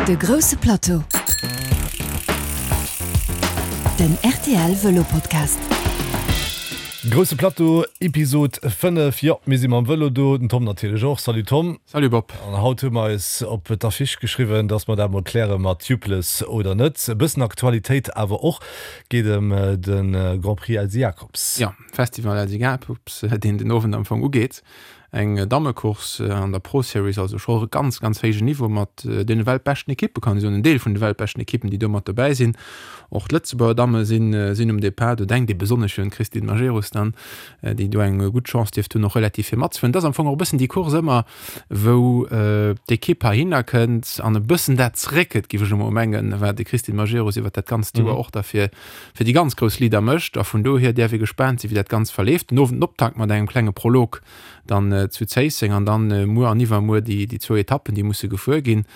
De grousse Plateau, den rtl Vëlo Podcast. Grousse Plateau, Episod 5. Jo, mir si mam Vëlo do, den Tom natierlech och. Salut Tom. Salut Bob. An haut hu mer eis op d'Affiche geschriwwen, dass mer dat mol kläre mat Tubeless oder net. E bëssen Aktualitéit awer och, geet ëm de Grand Prix Elsy Jacobs. Jo, Festival Elsy Jacobs, deen den Owend am Fong ugeet. Eng Dammecourse an der Pro Series, also scho e ganz, ganz héijen Niveau mat deene weltbeschten Ekippe kann ee soen, en Deel vun de weltbeschten Ekippen, déi do mat dobäi sinn. Och d'Lëtzebuerger Damme sinn, sinn um Depart. Do denkt ee besonnesch un d'Christine Majerus dann, déi do eng gutt Chance dierft hunn, och relativ vir matzefueren. Et ass am Fong och e bëssen déi Course ëmmer, wou d'Ekipp heihinner kënnt an e bëssen dat zeréckgëtt, géif ech emol mengen, wat de Christine Majerus iwwert dat ganzt Joer och da fir, fir déi ganz grouss Leader mécht. A vun dohier däerf ee gespaant sinn, wéi dat Ganzt verleeft. Den Owend den Optakt mat engem klenge Prolog dann zu Zéisseng an dann muer an iwwermuer déi déi zwou Etappen, déi musse gefuer ginn.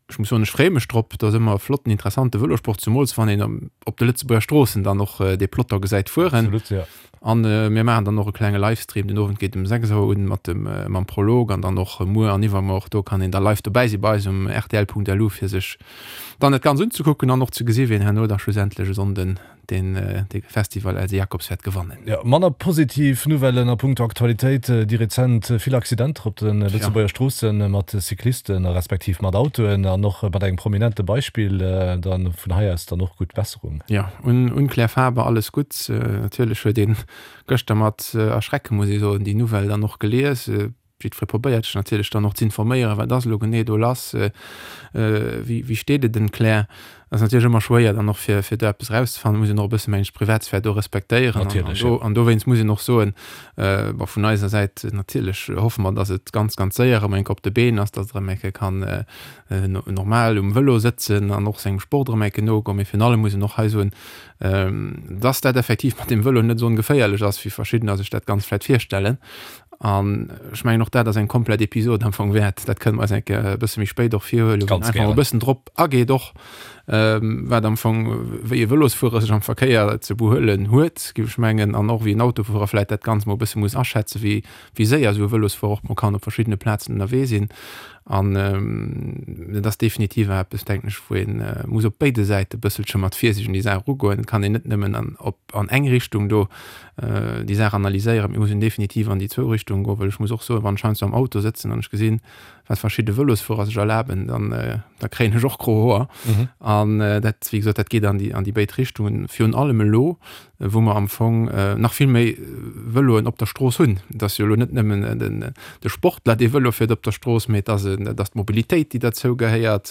Ech muss soen, ech freeë mech drop. Et ass ëmmer e flotten, interessante Vëlosport, zemools wann een op de Lëtzebuerger Stroossen dann och dee Peloton gesäit fueren. Absolut, jo. An mir maachen dann och e klenge Livestream. Den Owend geet um 6 Auer un mat dem mam Prolog an dann och muer an iwwermuer. Och do kann een da live dobäi si bei eis um rtl.lu fir sech dann dat Ganzt unzekucken an och ze gesi wien herno da schlussendlech e Sonnden deen de Festival Else Jacobs wäert gewannen. Jo, manner positiv Nouvellen a punkto Aktualitéit, déi rezent vill Accidenter op de Lëtzebuerger Stroosse mat Cyclisten a respektiv mat Autoen an och mat engem prominente Beispill dann vun hei aus dann och gutt Besserung. Jo, un Claire Faber alles Gutts. Natierlech huet een gëschter mat Erschrecke muss ee soen déi Nouvelle dann och gelies. Jiddweree probéiert sech natierlech dann och z'informéieren, wat ass elo genee do lass, wéi wéi steet et ëm d'Claire. Ass natierlech ëmmer schwéier dann och fir fir do eppes erauszefannen, muss een och e bësse mengen ech d'Privatsphär do respektéieren. Natierlech, jo. An dowéinst muss een och soen, bon vun eiser Säit natierlech hoffe mer, datt et ganz ganz séier erëm eng Kéier op de Been ass, datt et erëm eng Kéier kann normal um Vëlo sëtzen an och sengem Sport erëm eng Kéier nogoen. Mee virun allem muss een och hei soen, datt dat effektiv mat dem Vëlo net esou ongeféierlech ass, wéi verschiddener sech dat Ganzt vläicht virstellen. An ech mengen och dat ass eng komplett Episod am Fong wäert. Dat kënne mer eis eng Kéier e bësse méi spéit och virhuelen, wou een einfach e bëssen drop ageet och, wat am Fong, wéi e Vëlosfuerer sech am Verkéier ze behuelen huet, géif ech mengen, an och wéi en Autofuerer vläicht dat Ganzt mol e bësse muss aschätzen, wéi wéi séier esou e Vëlosfuerer och mol kann op verschiddene Plazen ënnerwee sinn. An et ass definitiv eppes, denken ech, wou ee muss op béide Säite e bësselche mat Virsiicht un déi Saach erugoen. Et kann een net nëmmen an op an eng Richtung do déi Saach analyséieren. Mir mussen definitiv an déi zwou Richtungen goen, well ech muss och soen, wann ech heiansdo am Auto sëtzen an ech gesinn, wat verschidde Vëlosfuerer sech erlaben, dann da kréien ech och gro Hoer. An dat, wéi gesot, dat geet an déi an déi béid Richtungen. Virun allem elo, wou mer am Fong nach vill méi Vëloen op der Strooss hunn. Et ass jo elo net nëmmen den de Sportler, dee Vëlo fiert op der Strooss, mee et ass et ass d'Mobilitéit, déi derzou gehéiert.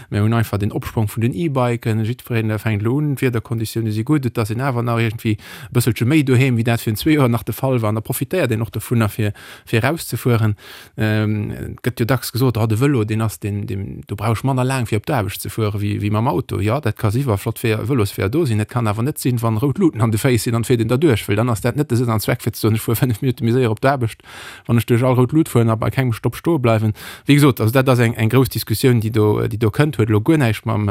Mir hunn einfach den Opsprong vun den E-Biken. Jiddwereen fänkt elo un, d'Wiederkonditioune si gutt, et ass een awer nach iergendwéi e bësselche méi doheem, wéi dat virun zwee Joer nach de Fall war. An da profitéiert een och dovunner, fir, fir erauszefueren. Et gëtt jo dacks gesot, oh, de Vëlo, deen ass deen, deen, do brauch ech manner laang, fir op d'Aarbecht ze fueren, wéi, wéi mam Auto. Jo, dat ka si wa flott Weeër, Vëlosweeër do sinn. Et kann awer net sinn, wann rout Luuten an de Féiss sinn an et fiert een derduerch, well dann ass dat net de Sënn an Zweck, fir ze soen, ech fuer 5 Minutte méi séier op d'Aarbecht, wann ech duerch all rout Lut fueren a bei kengem Stopp stoe bleiwen. Wéi gesot, also dat ass eng, eng grouss Diskussioun, déi do, déi do kënnt, huet elo guer näischt mam,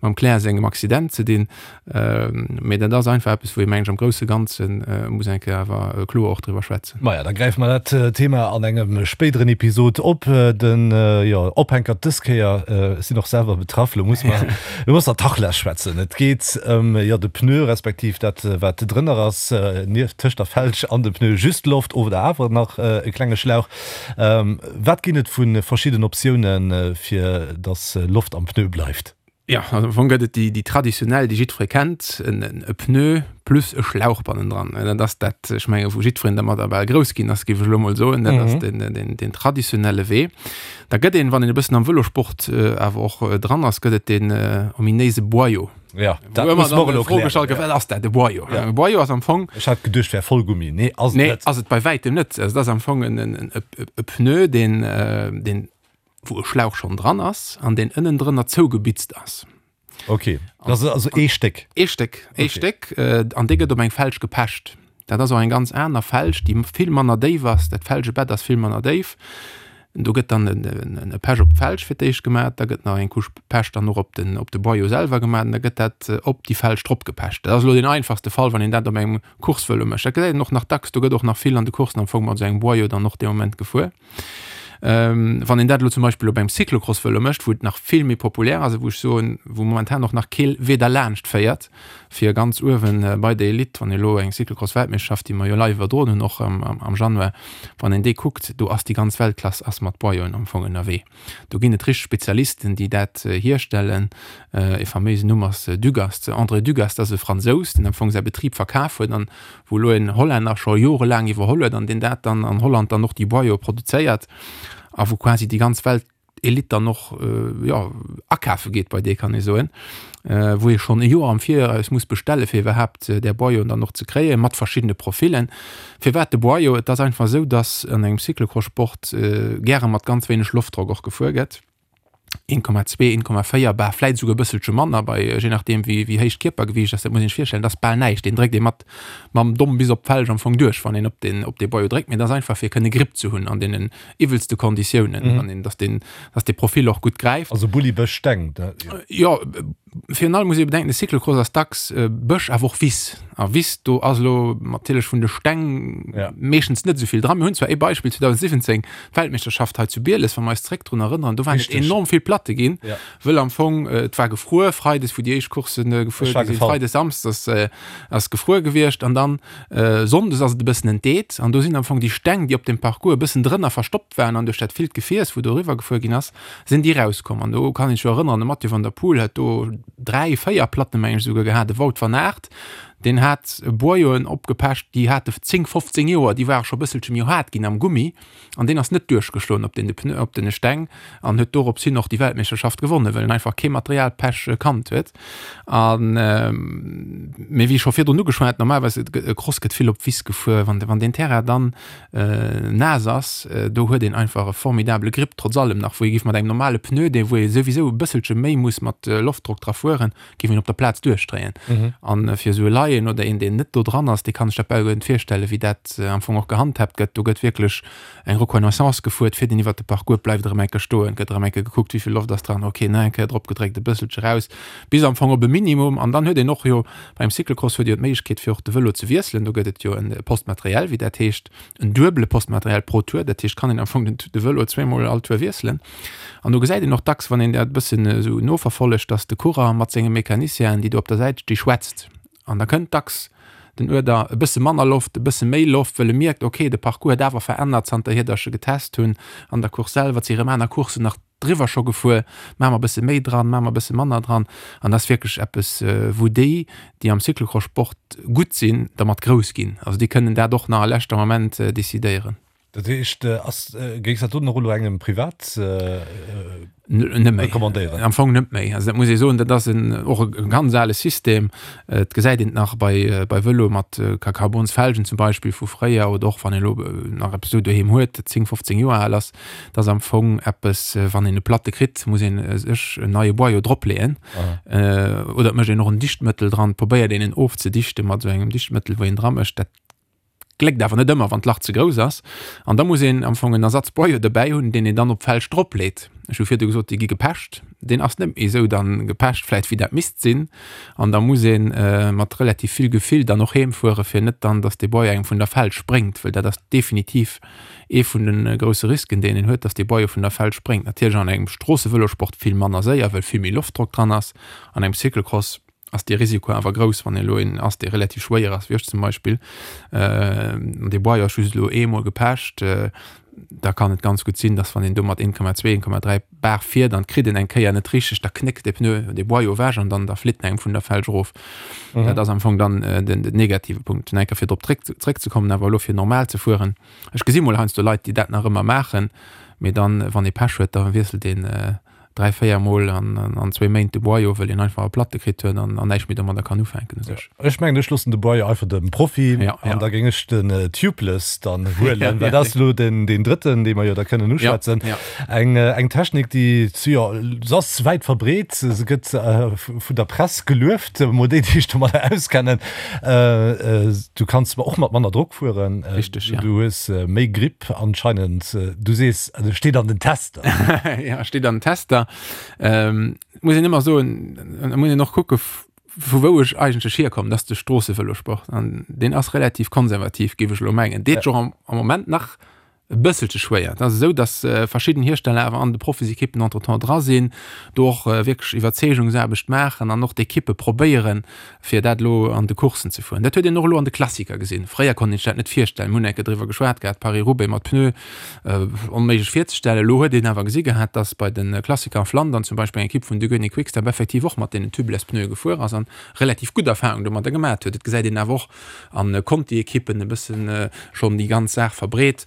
mam Claire sengem Accident ze dinn. Mee dat ass einfach eppes, wou ee, mengen ech, am grousse Ganze muss eng Kéier awer kloer och driwwer schwätzen. Maja, da gräife mer dat Thema an engem spéideren Episod op. Den, jo, Ophänkert dës Kéier, ech sinn och selwer betraff, lo muss mer, lo muss mer Tachles schwätzen. Et geet ëm, jo, de Pneu, respektiv dat, wat drënner ass, nieft, tëscht der Felg an dem Pneu, just Loft oder awer nach e klenge Schlauch. Wat ginn et vu verschidden Optiounen, fir dass Loft am Pneu bleift? Jo, also am Fong gëtt et déi, déi traditionell, déi jiddweree kennt, en, e Pneu plus e Schlauch bannendran. Dat ass dat, ech menge wou jiddwereen dermadder bal grouss ginn ass, géif ech elo mol soen. Dat ass den, den, den traditionelle Wee. Da gëtt een, wann een e bëssen am Vëlosport awer och dran ass, gëtt et deen ominéise Boyau. Ja, dat muss mer och elo klären. Gestallt gëtt, wat ass dat, e Boyau? Ja. E Boyau ass am Fong. Ech hat geduecht, wär Vollgummi. Nee, ass et net. Nee, ass et bei wäitem net. Also dat ass am Fong en, en, e, e Pneu, deen, deen wou e Schlauch schonn dran ass an deen ënnendrënner zougebitzt ass. Ok, dat ass also ee Stéck. Ee Stéck, ee Stéck, an dee gëtt op eng Felg gepecht. Dat ass och eng ganz aner Felg, déi vill manner déif ass. Dat Felgebett ass vill manner déif. Do gëtt dann e Pech op d'Felg fir d'éischt gemaach, da gëtt nach eng Couche Pech dann och op den, op de Boyau selwer gemaach an da gëtt dat op déi Felg drop gepecht. Dat ass elo deen einfachste Fall, wann een dat op engem Coursevëlo mécht. Dat gesäit een och nach dacks, do gëtt och nach vill an de Coursen am Fong mat esou engem Boyau dann och dee Moment gefuer. Wann een dat elo zum Beispill op engem Cyclocross-Vëlo mécht, wou et nach vill méi populär ass a wou ech soen, wou momentan och nach kee Wee derlaanscht féiert, fir ganz uewen bei der Elite, wann ee elo eng Cyclocross-Weltmeeschterschaft, déi mer jo live iwwerdroen hunn och am Januar, wann een déi kuckt, do ass déi ganz Weltklass ass mat Boyoen am Fong ënnerwee. Do ginn et richteg Spezialisten, déi dat hierstellen. E faméisen Numm ass Dugast, André Dugast ass e Fransous, deen am Fong säi Betrib verkaf huet an wou elo en Hollänner scho jorelaang iwwerholl huet an deen dat dann an Holland dann och déi Boyau produzéiert a wou quasi déi ganz Weltelite dann och jo akafe geet bei dee kann ee soen, wou ee schonn e Joer am Viraus muss bestelle fir iwwerhaapt där Boyauen dann och ze kréien, mat verschiddene Profillen. Firwat de Boyau? Et ass einfach esou, datt an engem Cyclocross-Sport gäre mat ganz wéineg Loftdrock och gefuer gëtt. 1,2, 1,4 bar, vläit esouguer e bësselche manner bei, je nachdeem wéi wéi héich d'Kierpergewiicht ass. Dat muss een sech virstellen, dat ass bal näischt. Deen dréckt ee mat mam Domm bis op d'Felg am Fong duerch, wann een op deen op dee Boyau dréckt. Mee dat ass einfach fir kënne Gripp ze hunn an deenen iwwelste Konditiounen, wann een, dass deen, dass dee Profil och gutt gräift. Also Bulli, Bësch, Steng, dat, jo. Jo, Virun allem muss ee bedenken, de Cyclocross ass dacks Bësch, awer och Wiss. A Wiss, do ass elo natierlech vun de Steng meeschtens net esou vill dran. Mir hunn zwar ee Beispill, 2017, d'Weltmeeschterschaft hei zu Bieles, wa mer eis zréck drun erënneren, do waren et enorm vill Platte ginn, wëll am Fong et war gefruer, freides, wou déi éischt Coursse gefuer gi sinn, freides, samsdes ass gefruer gewiescht an dann sonndes ass et e bëssen entdeet an do sinn am Fong déi Steng, déi op dem Parcours e bëssen drënner verstoppt waren an duerch dat villt Gefiers, wou doriwwer gefuer ginn ass, sinn déi rauskomm. An do kann een sech jo erënneren, de Mathieu van der Poel huet do 3, 4 Platten, meng ech esouguer gehat, de Wout van Aert, deen hat Boyoen opgepecht, déi hate 10, 15 Joer, déi ware scho e bësselche méi haart ginn am Gummi an deen ass net duerchgeschloen op den Pneu, op den Steng an huet dorops hin och déi Weltmeeschterschaft gewonnen, well en einfach kee Materialpech kannt huet. An, mee wéi scho virdrun ugeschwat, normalerweis e Cross gëtt vill op Wiss gefuer, wann wann deen Terrain dann naass ass, do huet een einfach e formidabele Grip, trotz allem nach, wou ee giff mat engem normale Pneu, dee wou ee souwisou e bësselche méi muss mat Loftdrock dra fueren, giff een op der Plaz duerchdréien. An fir esou e Laien oder een, deen net do dran ass, dee kann sech dat bal guer net virstellen, wéi dat am Fong och gehandhaabt gëtt. Do gëtt wierklech eng Reconnaissance gefuert, fiert een iwwert de Parcours, bleift erëm eng Kéier stoen, gëtt erëm eng Kéier gekuckt, wéi vill Loft ass dran, ok, nach eng Kéier drop gedréckt, e bësselche raus, bis am Fong op e Minimum. An dann huet een och jo Beim Cyclocross huet Dir jo d'Méiglechkeet fir och de Vëlo ze wiesselen. Do gëtt et jo e Poste matériel, wéi dat heescht, en duebele Poste matériel pro Tour. Dat heescht, kann een am Fong den de Vëlo zweemol all Tour wiesselen. An do gesäit een och dacks, wann een dat e bëssen esou noverfollegt, datt de Coureur mat senge Mecanicienen, déi do op der Säit sti, schwätzt. An da kënnt dacks den Uerder, e bësse manner Loft, e bësse méi Loft, wëll e mierkt, ok, de Parcours huet awer verännert zanterhier, datt ech e getest hunn an der Course selwer. Et si erëm aner Courssen nach driwwer scho gefuer, maache mer e bësse méi dran, maache mer e bësse manner dran. An dat ass wierklech eppes, wou déi, déi am Cyclocross-Sport gutt sinn, dermat grouss ginn. Also déi kënnen dat och nach a leschter Moment decidéieren. Dat heescht, ass, géings dat doten och elo engem privat Net méi. recommandéieren? Am Fong net méi. Also dat muss ee soen, dat ass en, och e ganz ale System. Et gesäit een et nach bei, bei Vëloe mat Carbonsfelgen zum Beispill vu fréier oder och wann een elo nach eppes esou doheem huet, dat 10, 15 Joer al ass. Dat ass am Fong eppes, wann een e Platte kritt, muss een sech en neie Boyau dropleeën. Oder et mécht een och en Dichtmëttel dran, probéiert een en ofzedichte mat esou engem Dichtmëttel, wou een dra mécht. Dat gléckt awer net ëmmer, wann d'Lach ze grouss ass. An da muss een am Fong en Ersatzboyau dobäi hunn, deen een dann op d'Felg dropleet. Ech hu virdu gesot, déi gi gepecht. Deen ass net méi esou dann gepecht vläicht, wéi dat misst sinn. An da muss ee mat relativ vill Gefill dann och heemfuere fir net dann, datt dee Boyau engem vun der Felg spréngt, wëll dat ass definitiv Ee vun de grousse Risken, deen een huet, dass dee Boyau vun der Felg spréngt. Natierlech an engem Stroossevëlosport vill manner séier, well vill méi Loftdrock dran ass. An engem Cyclocross ass dee Risiko awer grouss, wann een elo een ass, dee relativ schwéier ass, wéi ech zum Beispill, an dee Boyau ass just elo eemol gepecht, da kann et ganz gutt sinn, dass wann een do mat 1,2, 1,3 Bar fiert an et kritt een eng Kéier net richteg, da knéckt dee Pneu, dee Boyau ewech an dann da flitt en engem vun der Felg erof. Dat ass am Fong dann den negative Punkt. Nach eng Kéier fir drop zréckzekommen, awer elo fir normal ze fueren, Ech gesi mol heiansdo Leit, déi dat nach ëmmer maachen, mee dann, wann ee Pech huet, da wiesselt een 3, 4 Mol an zwéi Méint de Boyau, wëll een einfach e Platte kritt huet an näischt méi domadder kann ufänken u sech. Ech mengen, ech loossen de Boyau einfach dem Profi an da géing ech den Tubeless dann huelen, well dat ass elo den drëtten, dee mer jo da kënnen uschwätzen. Eng Technik, déi, jo, se ass wäit verbreet, se gëtt vun der Press gelueft, emol déi, déi sech domadder auskennen. Du kanns och mat manner Drock fueren. Richteg, ja. Du hues méi Gripp anscheinend. Du sees, also steet an den Tester. Ja, steet an den Tester. Ähm, muss een ëmmer soen, da muss een och kucke vu wou ech eigentlech hierkommen, dat ass de Stroossevëlosport an deen ass relativ konservativ, géif ech elo mengen. Deet scho am, am Moment nach. E bësselche schwéier. Et ass esou, datt verschidden Hiersteller awer an de Profisekippen entretemps dra sinn, do och wierklech Iwwerzeegungsaarbecht maachen an och d'Ekippe probéieren, fir dat elo an de Courssen ze fueren. Dat huet een och elo an de Klassiker gesinn. Fréier konnt een sech dat net virstellen. Mir hunn eng Kéier driwwer geschwat gehat, Paris-Roubaix mat Pneu, onméiglech virzestellen. Elo huet een awer gesi gehat, datt bei de Klassiker a Flandern zum Beispill eng Ekipp vun Deceuninck Quick-Step effektiv och mat deenen Tubeless-Pneue gefuer ass an relativ gutt Erfahrung domadder gemat huet. Et gesäit een awer och, an Conti-Ekippen e bëssen schonn déi ganz Saach verbreet,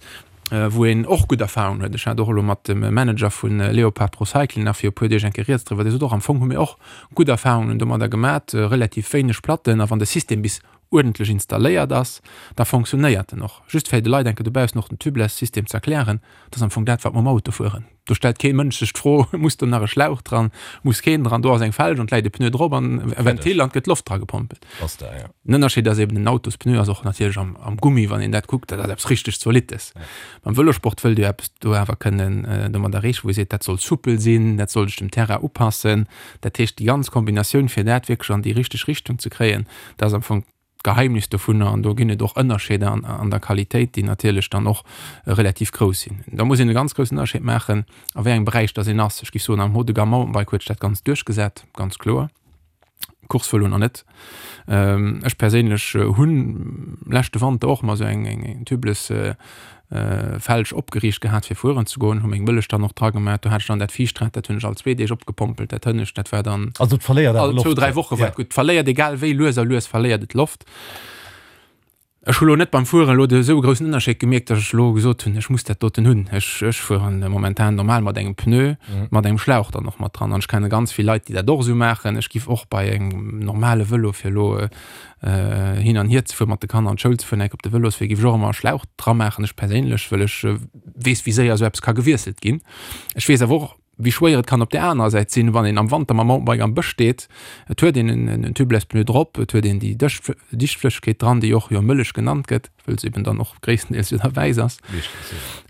wou een och gutt Erfahrungen huet. Ech hat och elo mat dem Manager vu Leopard Pro Cycling nach fir e puer Deeg eng Kéier rieds driwwer, dee sot och, am Fong hu mir och gutt Erfahrungen domadder gemat, relativ wéineg Platten, a wann de System bis uerdentlech installéiert ass, da fonctionnéiert en och. Just fir de Leit eng Kéier dobaussen och den Tubeless-System ze erklären, dat ass am Fong dat, wat mer am Auto fueren. Do stellt kee Mënsch sech d'Fro, muss do nach e Schlauch dran, muss keen dran, do ass eng Felg an et läit e Pneu drop an e Ventil an et gëtt Loft dra gepompelt. Den Ënnerscheed ass eben, den Autospneu ass och natierlech am, am Gummi, wann een dat kuckt, dat ass eppes richteg Zolittes. Beim Vëlosport wëllt Dir eppes do awer kënnen domat erreechen, wou Dir seet, dat soll soupel sinn, dat soll sech dem Terrain upassen. Dat heescht, déi ganz Kombinatioun, fir dat wierklech an déi richteg Richtung ze kréien, dat ass am Fong d'Geheimnis dovunner an do ginn et och Ënnerscheeder an, an der Qualitéit, déi natierlech dann och relativ grouss sinn. Da muss een e ganz groussen Ënnerscheed maachen, a wéi engem Beräich dass een ass. Ech géif soen, am Haut de gamme Mountainbike huet sech dat Ganzt duerchgesat, ganz kloer. Coursevëlo nach net. Ech perséinlech hunn leschte Wanter och mol esou eng, eng tubeless Felg opgeriicht gehat fir fueren ze goen, hu meng Mëllech dann och dra gemaach. Do hat ech dann dat viischt Rad, dat hunn ech all zwee Deeg opgepompelt, dat hënnescht, dat war dann Also et verléiert awer all zwou, Loft. dräi Woche war Ja. et gutt. Et verléiert egal wéi, lues a lues verléiert et Loft. Ech hu lo net beim Fueren elo de esou e groussen Ënnerscheed gemierkt, datt ech elo gesot hunn, ech muss dat doten hunn. Ech, ech fueren momentan normal mat engem Pneu, mat engem Schlauch dann och mat dran. An ech kenne ganz vill Leit, déi dat och esou maachen. Ech giff och bei engem normale Vëlo fir elo hin an hier ze fueren, mat de Kanner an d'Schoul ze fueren, enk op de Vëloswee, géif ech och ëmmer e Schlauch dra maachen, ech perséinlech, wëll ech weess, wéi séier esou eppes ka gewiesselt ginn. Ech weess awer och, wéi schwéier et kann op där anerer Säit sinn, wann een am Wanter mam Mountainbike am Bësch steet, et huet een en Tubeless Pneu drop, et huet een déi Dichtflëssegkeet dran, déi och jo Mëllech genannt gëtt, wëll se eben dann och gréisstendeels jo da wäiss ass.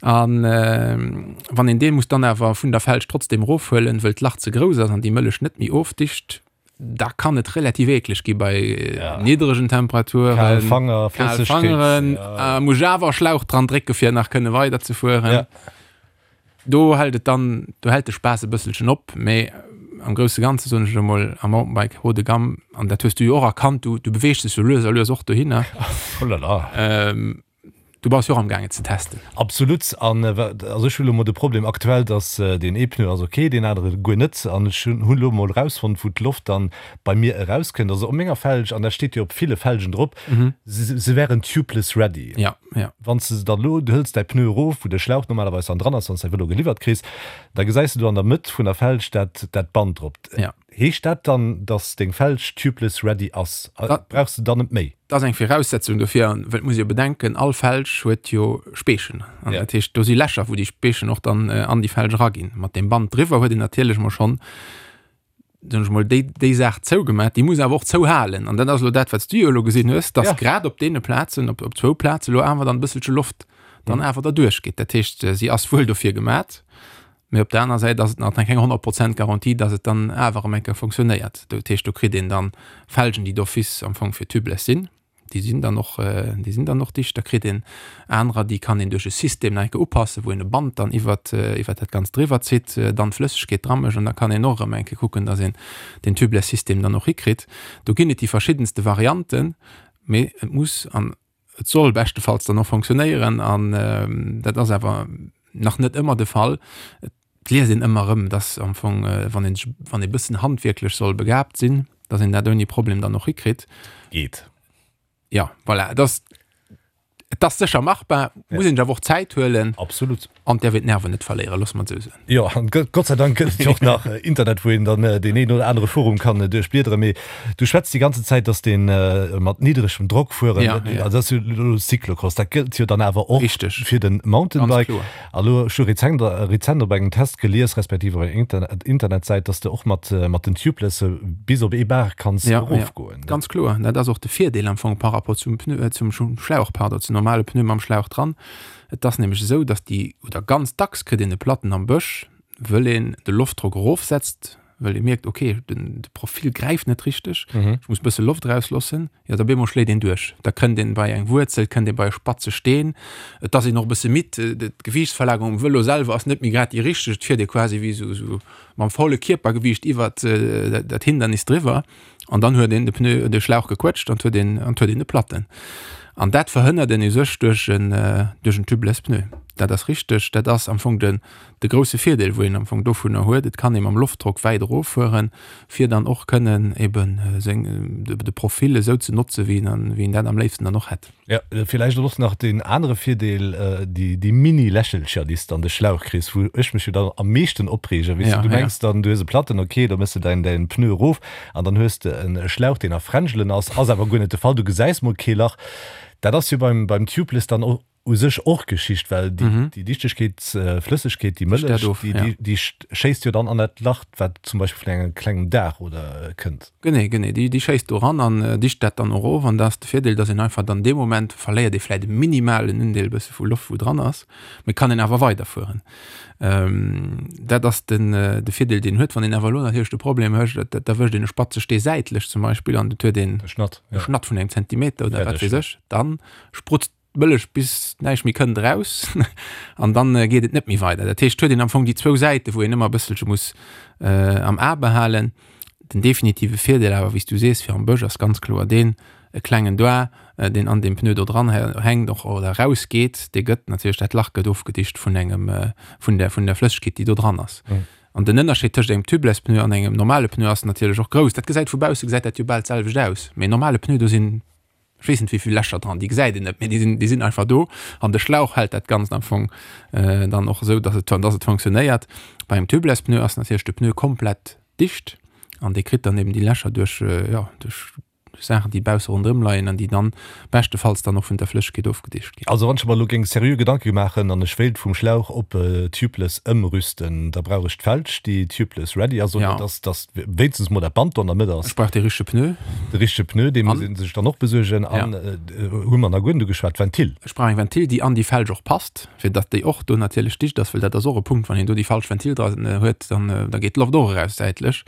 An wann een dee muss dann awer vun der Felg trotzdem erofhuelen, wëll d'Lach ze grouss ass an déi Mëllech net méi ofdicht, da kann et relativ eekleg gi bei ja. niddregen Temperaturen. Kal Fanger, Kal Fangeren, ja. äh, muss awer Schlauch dran drécke fir nach kënne weider ze fueren. Ja. Do hält et dann do hält de Spaass e bësselchen op, mee am grousse Ganze soen ech emol am Mountainbike haut de gamme an dat hues du jo och erkannt, du, du beweegst dech sou lues a lues och dohinner. Oh la la. Ähm, Du bass jo och am gaangen ze testen. Absolut. An also ech hu lo mol de Problem aktuell, dass deen ee Pneu ass ok, deen anere guer net. An ech hunn elo mol erausfonnt, wou d'Loft dann bei mir erauskënnt. Also op menger Felg, an dat steet jo op ville Felgen drop, se se wären tubeless ready. Ja, ja. Wann s de se dann elo, du hëls däi Pneu erof, wou de Schlauch normalerweis dann dran ass, wann s däi Vëlo geliwwert kriss, da gesäis de do an der Mëtt vun der Felg dat dat Band drop. Ja. Heescht dat dann, dass deng Felg tubeless ready ass? Brauchs de dann net méi? Dat ass eng Viraussetzung dofir, an well et muss ee jo bedenken, all Felg huet jo Speechen, an dat heescht do si Lächer wou déi Speechen och dann an déi Felg eraginn. Mat deem Band driwwer huet een natierlech mol schonn, soen ech mol, déi déi Saach zougemat, déi muss awer och zouhalen. An dat ass elo dat wat s du jo elo gesinn hues, dass grad op deene Plazen, op op zwou Plaze elo awer dann e bësselche Loft dann awer derduerch geet. Dat heescht si ass wuel dofir gemat, Mee op der aner Säit ass et nach keng 100 Prozent Garantie, dass et dann awer erëm eng Kéier funktionéiert. Dat heescht, do kritt een dann Felgen, déi d'office am Fong fir tubeless sinn. Déi sinn dann och, déi sinn dann och dicht. Da kritt een anerer, déi kann een duerch e System nach eng Kéier upassen, wou een e Band dann iwwert, iwwert dat Ganzt driwwer zitt, dann d'Flëssegkeet dra mécht an da kann een och erëm eng Kéier kucken, dass een deen Tubeless-System dann och hikritt. Do ginn et déi verschiddenste Varianten, mee et muss an Et soll beschtefalls dann och fonctionnéieren an dat ass awer nach net ëmmer de Fall. Et liest een ëmmer erëm, dass am Fong, wann een sech, wann ee bëssen handwierklech soll begaabt sinn, dass een dat ouni Problem dann och hikritt. Geet. Jo, voilà, et ass, et ass sécher machbar, muss een sech awer och Zäit huelen. Absolut. An däerf een d'Nerven net verléieren, loosse mer et esou soen. Jo, an Gott sei Dank gëtt et jo och nach Internet, wou een dann deen een oder anere Forum kann duerchbliederen. Mee du schwätz déi ganze Zäit, dass dee mat niddregem Drock fueren, also dat ass jo elo Cyclocross, dat gëllt jo dann awer och fir de Mountainbike. A lo, ech hu rezent, rezent op engem Test gelies, respektiv op enger Internetsäit, dass de och mat, mat den Tubelesse bis op ee Bar kanns erofgoen. Ganz kloer, dat ass och de Virdeel am Fong par rapport zum Pneu, zum Schlauch, pardon, zum normale Pneu mam Schlauch dran. Et ass nämlech esou, dass déi, oder ganz dacks kritt een e Platten am Bësch, wëll een de Loftdrock erofsetzt. well ee mierkt, okay, den de Profil gräift net richteg, ech muss e bësse Loft erausloossen, jo da bemol schléit een duerch. Da kënnt een bei eng Wuerzel, kënnt ee bei e spatze Steen, et ass een och e bësse midd, d'Gewiichtsverlagerung um Vëlo selwer ass net méi grad déi richteg, et fiert ee quasi wéi esou esou mam volle Kierpergewiicht iwwert dat Hindernis driwwer an dann huet een de Pneu, de Schlauch gequëtscht an huet een an huet een e Platten. An dat verhënnert een u sech duerch en duerch en tubeless Pneu. Dat ass richteg, dat ass am Fong den de grousse Virdeel wou een am Fong dovunner huet. Et kann ee mam Loftdrock wäit eroffueren, fir dann och kënnen eben seng de Profil esou ze notze wéi een wéi een dat am léifsten dann och hätt. Jo, villäicht och nach deen anere Virdeel, déi déi Mini-Lächelcher, déi s de an de Schlauch kriss, wou ech mech jo dann am meeschten opreegen, weess de, du mengs dann, du hues e Platten, ok, da méchs de däin däin Pneu erof an dann hues de e Schlauch, deen a Fränjelen ass, ass awer guer net de Fall, du gesäis mol kee Lach. Dat ass jo beim beim Tubeless dann och u sech och Geschicht, well déi déi Dichtegkeet, Flëssegkeet, déi Mëllech, déi déi schéisst jo dann an dat Lach, wat zum Beispill vun engem klengem Daach oder kënnt. Genee, genee, déi déi schéisst do ran an dicht dat dann och of. An da ass de Virdeel, dass een einfach dann dee Moment verléiert ee vläit e minimalen Undeel e bësse vu Loft wou dran ass, mee kann een awer weiderfueren. Dat ass den de Virdeel deen huet. Wann een awer elo natierlech de Problem huet, et erwëscht een e spatze Stee säitlech zum Beispill an et huet een e Schnatt, e Schnatt vun engem Zentimeter oder wat weess ech, dann sprutzt d'Mëllech bis näischt méi kënnt eraus an dann geet et net méi weider. Dat heescht, huet een am Fong déi zwou Säite wou een ëmmer e bësselche muss am A behalen. Den definitive Virdeel awer, wéi s du sees, fir am Bësch ass ganz kloer deen, e klengen Doigt, deen an deem Pneu do dran hänkt och oder erausgeet, dee gëtt natierlech, dat Lach gëtt ofgedicht vun engem, vun der, vun der Flëssegkeet, déi do dran ass. An den Ënnerscheed tëscht engem Tubeless Pneu an engem normale Pneu ass natierlech och grouss. Dat gesäit vu bausse gesäit dat jo bal d'selwecht aus, mee en normale Pneu, do sinn ech weess net wéivill Lächer dran, déi gesäit een net, mee déi sinn, déi sinn einfach do an de Schlauch hält dat Ganzt am Fong dann och esou, dass et, dass et fonctionnéiert. Bei engem Tubeless Pneu ass natierlech de Pneu komplett dicht an dee kritt dann eben déi Lächer duerch, jo, duerch Saachen, déi bausse ronderëm leien an déi dann beschtefalls dann och vun der Flëssegkeet ofgedicht ginn. Also wann ech mer elo géing seriö Gedanke maachen an ech wéilt vum Schlauch op Tubeless ëmrüsten, da brauch ech d'Felg, déi Tubeless ready ass, oder dass, dass wéinstens mol dat Band do an der Mëtt ass. Ech brauch dee richtege Pneu. De richtege Pneu, dee muss ee sech dann och besuergen. An hu mer nach guer net ugeschwat, d'Ventil. Ech brauch eng Ventil, déi an déi Felg och passt, fir datt déi och do natierlech dicht ass, well dat ass och e Punkt, wann een do déi falsch Ventil dran huet, dann da geet d'Loft och eraus säitlech.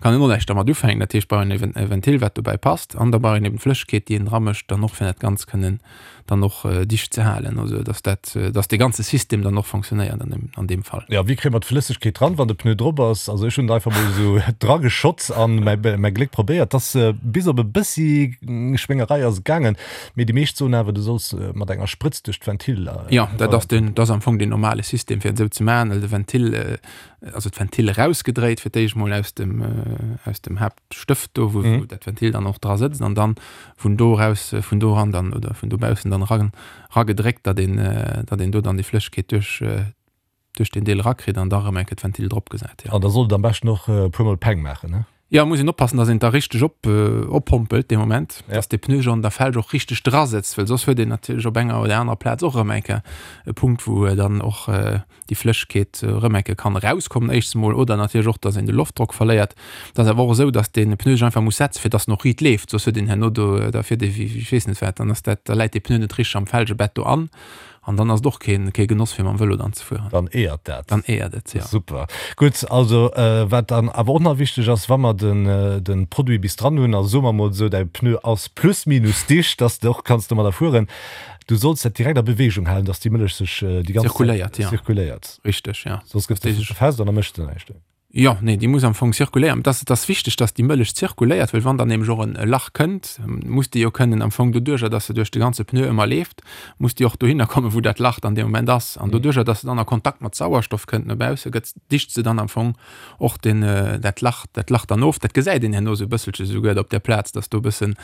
Kann een och näischt dermat ufänken. Dat heescht, brauch een e Ventil, wat dobäi passt. An da brauch een eben d'Flëssegkeet, déi een dramécht, dann och fir dat Ganzt kënnen dann och dicht ze halen, also dass dat, dass dee ganze System dann och fonctionnéiert an deem, an deem Fall. Jo, wéi kréie mer d'Flëssegkeet dran, wann de Pneu drop ass? Also ech hunn et einfach mol esou drageschott an mäi, mäi Gléck probéiert. T'ass bis op e bëssi Schwéngerei ass et gaangen, mee déi meescht soen awer, du solls mat enger Sprëtz duerch d'Ventil. Jo, dat ass den, dat ass am Fong deen normale System fir et esou ze maachen, well de Ventil, also d'Ventil erausgedréit fir d'éischt mol aus dem, aus dem Haapt. Stëft do, wou, wou dat Ventil dann och dra sëtzt an dann vun do raus, vun do ran dann oder vun dobaussen dann ran, ragedréckt, datt een, datt een do dann déi Flëssegkeet duerch, duerch deen Deel rakritt an da rëm eng Kéier d'Ventil drop gesat, jo. An da sollt et am beschten och e puermol Peng maachen, ne? Jo, muss een oppassen, datt een et da richteg op, oppompelt dee Moment, datt dee Pneu jo an der Felg och richteg dra sëtzt, well soss huet een natierlech op enger oder anerer Plaz och erëm eng Kéier e Punkt, wou dann och déi Flëssegkeet erëm eng Kéier kann erauskommen éischts emol oder natierlech och, dass een de Loftdrock verléiert. Et ass awer och esou, dass dee Pneu sech einfach muss setzen, fir dass en och riit leeft, soss huet een herno do, da fiert ee wéi ech weess net wat, dann ass dat, da läit dee Pneu net richteg am Felgebett do an an dann ass et och keen, kee Genoss fir mam Vëlo dann ze fueren. Dann eeërt dat. Dann eeërt et, jo. Super. Gutt, also wat dann awer och nach wichteg ass, wa mer den, de Produit bis dran hunn, also soe mer emol esou, däi Pneu ass plus minus dicht, dass de och kanns domadder fueren, Du solls dat direkt a Beweegung halen, dass déi Mëllech sech déi ganz Zirkuléiert, ja. Zirkuléiert. Richteg, ja. Soss gëtt se fest an da mécht se näischt. Jo, nee, déi muss am Fong zirkuléieren. Et ass, et ass wichteg, dass déi Mëllech zirkuléiert, well wann dann nämlech och en e Lach kënnt, muss déi jo kënnen am Fong doduerjer, dass se duerch de ganze Pneu ëmmer leeft, muss déi och dohinner kommen, wou dat Lach dann dee Moment ass. An doduerjer, dass se dann a Kontakt mat Sauerstoff kënnt no bausse, gëtt, dicht se dann am Fong och den, dat Lach, dat Lach dann of. Dat gesäit een herno esou e bësselche souguer op där Plaz, dass do e bësse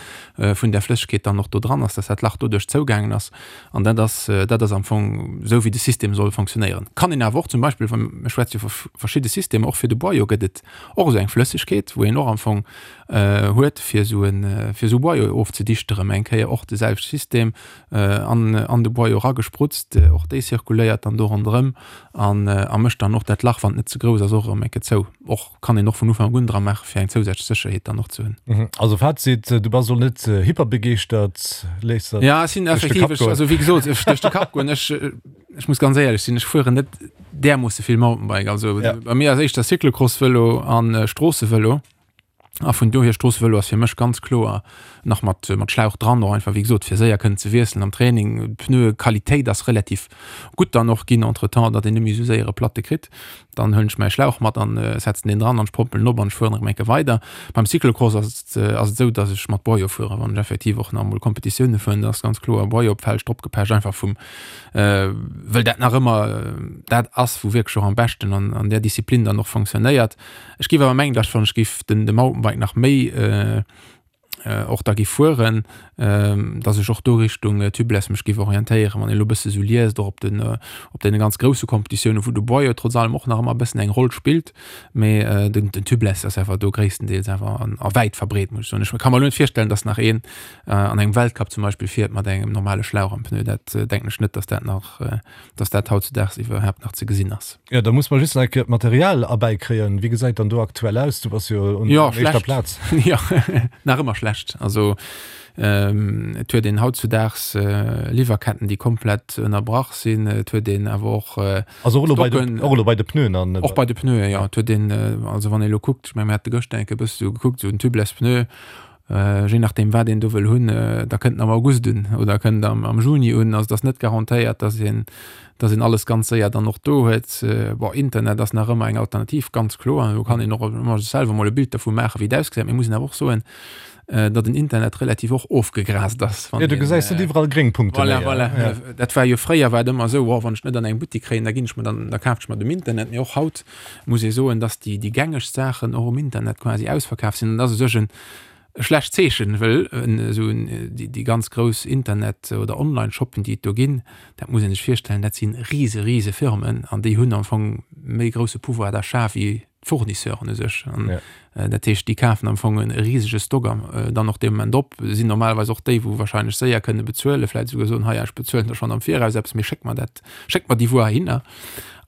vun där Flëssegkeet dann och do dran ass, dass dat Lach doduerch zougaangen ass. An dat ass, dat ass am Fong esou, wéi de System soll fonctionnéieren. Kann een awer och zum Beispill, wa mir schwätze jo vu verschidde Systemer, och fir de Boyau gëtt et och esou eng Flëssegkeet, wou een och am Fong huet, fir esou en, fir esou Boyau ofzedichte erëm eng Kéier, och de selwechte System an, an de Boyau eragesprutzt. Och déi zirkuléiert dann do ronderëm. An a mécht dann och dat Lach, wann et net ze grouss ass, och erëm eng Kéier zou. Och kann een och vun Ufank un dra maachen, fir eng zousätzlech Sécherheet dann och ze hunn. Also Fazit, du bass elo net hyperbegeeschtert, léiss der Ja, ech sinn duerch de effektiv, Kapp ech, goen. also wéi gesot, ech duerch de Kapp goen. Ech, ech muss ganz éierlech sinn, ech fueren net. därmoosse vill Mountainbike. Also ja. bei mir ass éischter Cyclocross-Vëlo an äh, Stroossevëlo. A vun dohier Stroossevëlo ass fir mech ganz kloer nach mat, mat Schlauch dran, och einfach wéi gesot fir séier kënnen ze wiesselen am Training. D'Pneuequalitéit ass relativ gutt dann och ginn entretemps, datt een net méi esou séier e Platte kritt. Dann huelen ech mäi Schlauch mat an setzen deen dran an ech pompelen op an ech fueren erëm eng Kéier weider. Beim Cyclocross ass et ass et esou, datt ech mat Boyau fueren, wann ech effektiv och nach emol Kompetitioune fueren, da ass ganz kloer Boyau op d'Felg drop gepecht, einfach vum wëll dat nach ëmmer dat ass, wou wierklech och am beschten an an där Disziplin dann och fonctionnéiert. Ech géif awer mengen, datt wann ech géif den de Mountainbike nach méi och da géif fueren, datt ech och do Richtung Tubeless mech géif orientéieren. Wann een elo e bësse sou liest, och op den op deene ganz grousse Competitiounen, wou de Boyau trotz allem och nach ëmmer e bëssen eng Roll spillt, mee den den Tubeless ass awer do gréisstendeels awer an a wäit verbreet, muss ech soen. Ech ka mer elo net virstellen, datt nach een an engem Weltcup zum Beispill fiert mat engem normale Schlauch am Pneu. Dat denken ech net, datt dat nach datt dat hautzudaags iwwerhaapt nach ze gesinn ass. Jo, da muss mer just nach eng Kéier d'Material erbäikréien. Wéi gesäit dann do aktuell aus? Du bass jo un jo, éischter Plaz. Jo, nach ëmmer schlecht. Also et huet een hautzudaags Liwwerketten, déi komplett ënnerbrach sinn. Et huet een awer och Also och elo bei de, och elo bei de Pneuen an. Och bei de Pneuen, jo. Et huet een, also wann ee elo kuckt, ech menge mir hate gëschter eng Kéier e bësse sou gekuckt, sou en Tubeless Pneu, Je nachdeem wat een do wëll hunn, da kënnt en am August un oder kënnt am, am Juni un. Also et ass net garantéiert, dass een, dass een alles ganz séier dann och do huet. Bon, Internet ass nach ëmmer eng Alternativ, ganz kloer. Do kann een och ëmmer sech selwer mol e Bild dervu maachen, wéi et ausgesäit. Mee muss een awer och soen, datt den Internet relativ och ofgegraast ass. Jo, du gesäis net iwwerall gréng Punkte méi. Voilà, voilà. Dat war jo fréier war et ëmmer esou, oh, wann ech net an engem Buttik kréien, da ginn ech mer dann, da kafen ech mer et um Internet. Mee och haut muss ee soen, dass déi, déi gängegst Saachen och um Internet quasi ausverkaf sinn. An dat ass u sech en schlecht Zeechen, wëll esou déi, déi ganz grouss Internet oder Online-Shoppen, déi et do ginn, dat muss ee sech virstellen, dat si rise, rise Firmen an déi hunn am Fong méi grousse Pouvoir d'achat wéi d'Fournisseuren u sech. An dat heescht, déi kafen am Fong e risege Stock dann och dee Moment op, sinn normalerweis och déi, wou wahrscheinlech séier kënne bezuelen, vläicht esouguer soen, hei, ech bezuelen der schonn am Viraus eppes, mee schéck mer dat, schéck mer déi Wuer heihinner.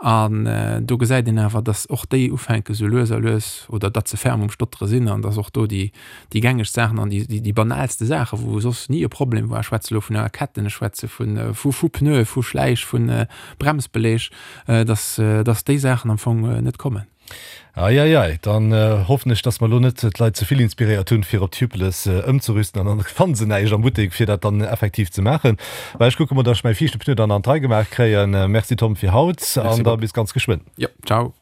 An do gesäit een awer, datt och déi ufänke sou lues a lues, oder datt se ferm um Stottere sinn an datt och do déi, déi gängegst Saachen an déi, déi banaalste Saachen, wou soss ni e Problem war, ech schwätze elo vun enger Ketten, ech schwätze vun, vu, vu Pneue, vu Schläich, vu Bremsbeleg, datt, datt déi Saachen am Fong net kommen. Eieiei, dann hoffen ech, dass mer elo net d'Leit ze vill inspiréiert hunn, fir op Tubeless ëmzerüsten an dann fanne se näischt am Buttek, fir dat dann effektiv ze maachen. Mä ech kucke mol, dass ech mäi viischte Pneu dann an d'Rei gemaach kréien. Merci Tom fir haut an da bis ganz geschwënn. Jo, ciao.